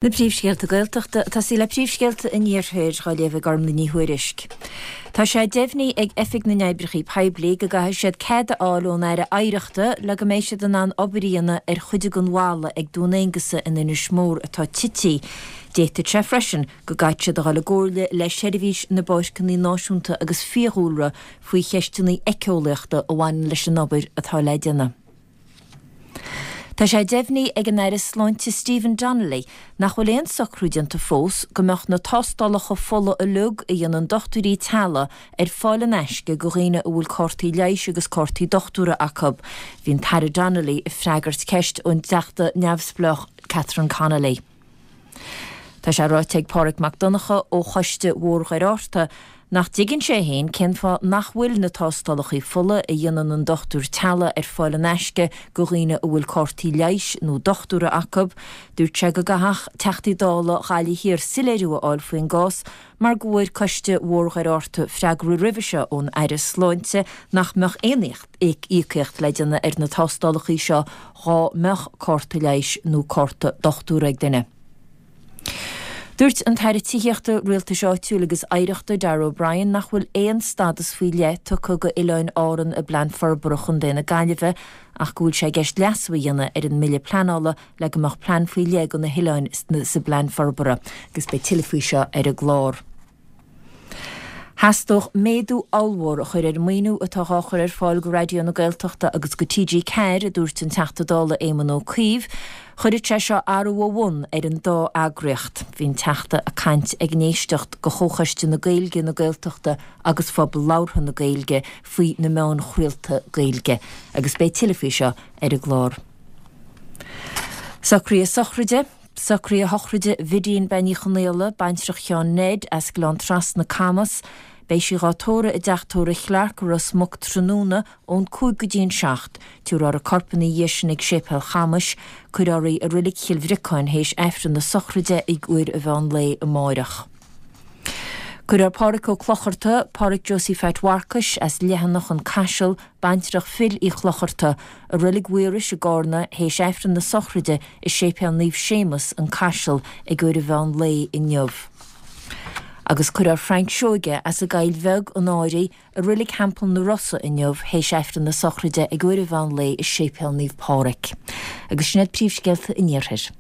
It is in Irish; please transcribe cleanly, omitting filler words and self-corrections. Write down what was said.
Na príomhscéalta Gaeltachta, ag tosaí le príomhscéalta an Iarthair, dhá léamh ag Ormlaith Ní Thuairisg. Tá sé deimhnithe ag Oifig na nOibreacha Poiblí go gcaithfidh siad cead a fháil ón Aire Oidhreachta le go mbeidh siad in ann obair a dhéanamh ar chuid den bhalla ag Dún Aonghasa in Inis Mór atá tití. D'fhéadfadh sé freisin go gcaithfidh siad a dhul i gcomhairle le Seirbhís na bPáirceanna Náisiúnta agus Fiadhúlra faoi cheisteanna éiceolaíochta a bhaineann leis an obair atá le déanamh. Tá sé deimhnithe ag an Aire Sláinte Stephen Donnelly nach bhfuil aon socrú déanta fós go mbeadh na tástálacha fola uilig a dhéanann dochtúirí teaghlaigh ar fáil in aisce do dhaoine a bhfuil cártaí leighis agus cártaí dochtúra acu. Bhí an tAire Donnelly ag freagairt ceist ón dTeachta neamhspleách Catherine Connolly. Tá sé ráite ag Páraic Mac Donncha ó Choiste Bhóthar Dhoire Fhatharta nach dtuigeann sé féin cén fáth nach bhfuil na tástálacha fola a dhéanann an dochtúir teaghlaigh ar fáil in aisce do dhaoine a bhfuil cártaí leighis nó dochtúra acu. Dúirt sé go gcaithfeadh Teachtaí Dála Ghaillimh Thiar soiléiriú a fháil faoin gcás mar go bhfuair Coiste Bhóthar Dhoire Fhatharta freagra roimhe seo ón Aire Sláinte nach mbeadh aon íocaíocht le déanamh ar na tástálacha seo dhá mbeadh cárta leighis nó cárta dochtúra ag duine. Dúirt an tAire Tithíochta, Rialtais Áitiúil agus Oidhreachta, Darragh O'Brien nach bhfuil aon stádas faoi leith tugtha go Oileáin Árann i bPlean Forbartha Chontae na Gaillimhe ach go bhfuil sé i gceist leasú a dhéanamh ar an mBille Pleanála le go mbeadh plean faoi leith do na hoileáin sa bplean forbartha agus beidh tuilleadh faoi seo ar an gclár. Theastódh méadú ollmhór a chur ar an maoiniú atá dhá chur ar fáil go Raidió na Gaeltachta agus go TG4, a dúirt an Teachta Dála Éamon Ó Cuív. Chuirfeadh sé seo athrú ó bhun ar an dá eagraíocht. Bhí an Teachta ag caint ag an éisteacht go Chomhchoiste na Gaeilge, na Gaeltachta agus Phobal Labhartha na Gaeilge faoi na meáin chraolta Gaeilge agus beidh tuilleadh faoi seo ar an gclár. Socruithe sochraide, Socruithe sochraide Bhidín Bean Uí Chonaola, baintreach Sheáin Ned, as Gleann Trasna, Camas. Beidh sí dhá tórramh i dteach tórraimh Chlarke i Ros Muc tráthnóna ón 5 go dtí an 7. Tabharfar a corp ina dhiaidh sin ag Séipéal Chamais. Cuirfear í i Reilig Chill Bhriocáin théis Aifreann na sochraide ag uair an mheán lae amáireach. Cuirfear Pádhraic Ó Clocharta, Pádhraic Josie Pheait Mharcais, as Leitheanach, An Caiseal, baintreach Phil Uí Chlocharta, i Reilig Mhaorais i gCárna théis Aifreann na sochraide i Séipéal Naomh Séamus, An Caiseal, ag uair an mheán lae inniu. Agus cuirfear Frank Seoige, as an gCoill Bheag, An Áraidh, i Reilig Theampall na Rosa inniu théis Aifreann na sochraide ag uair an mheán lae i Séipéal Naomh Pádhraic. Agus sin iad príomhscéalta an Iarthair.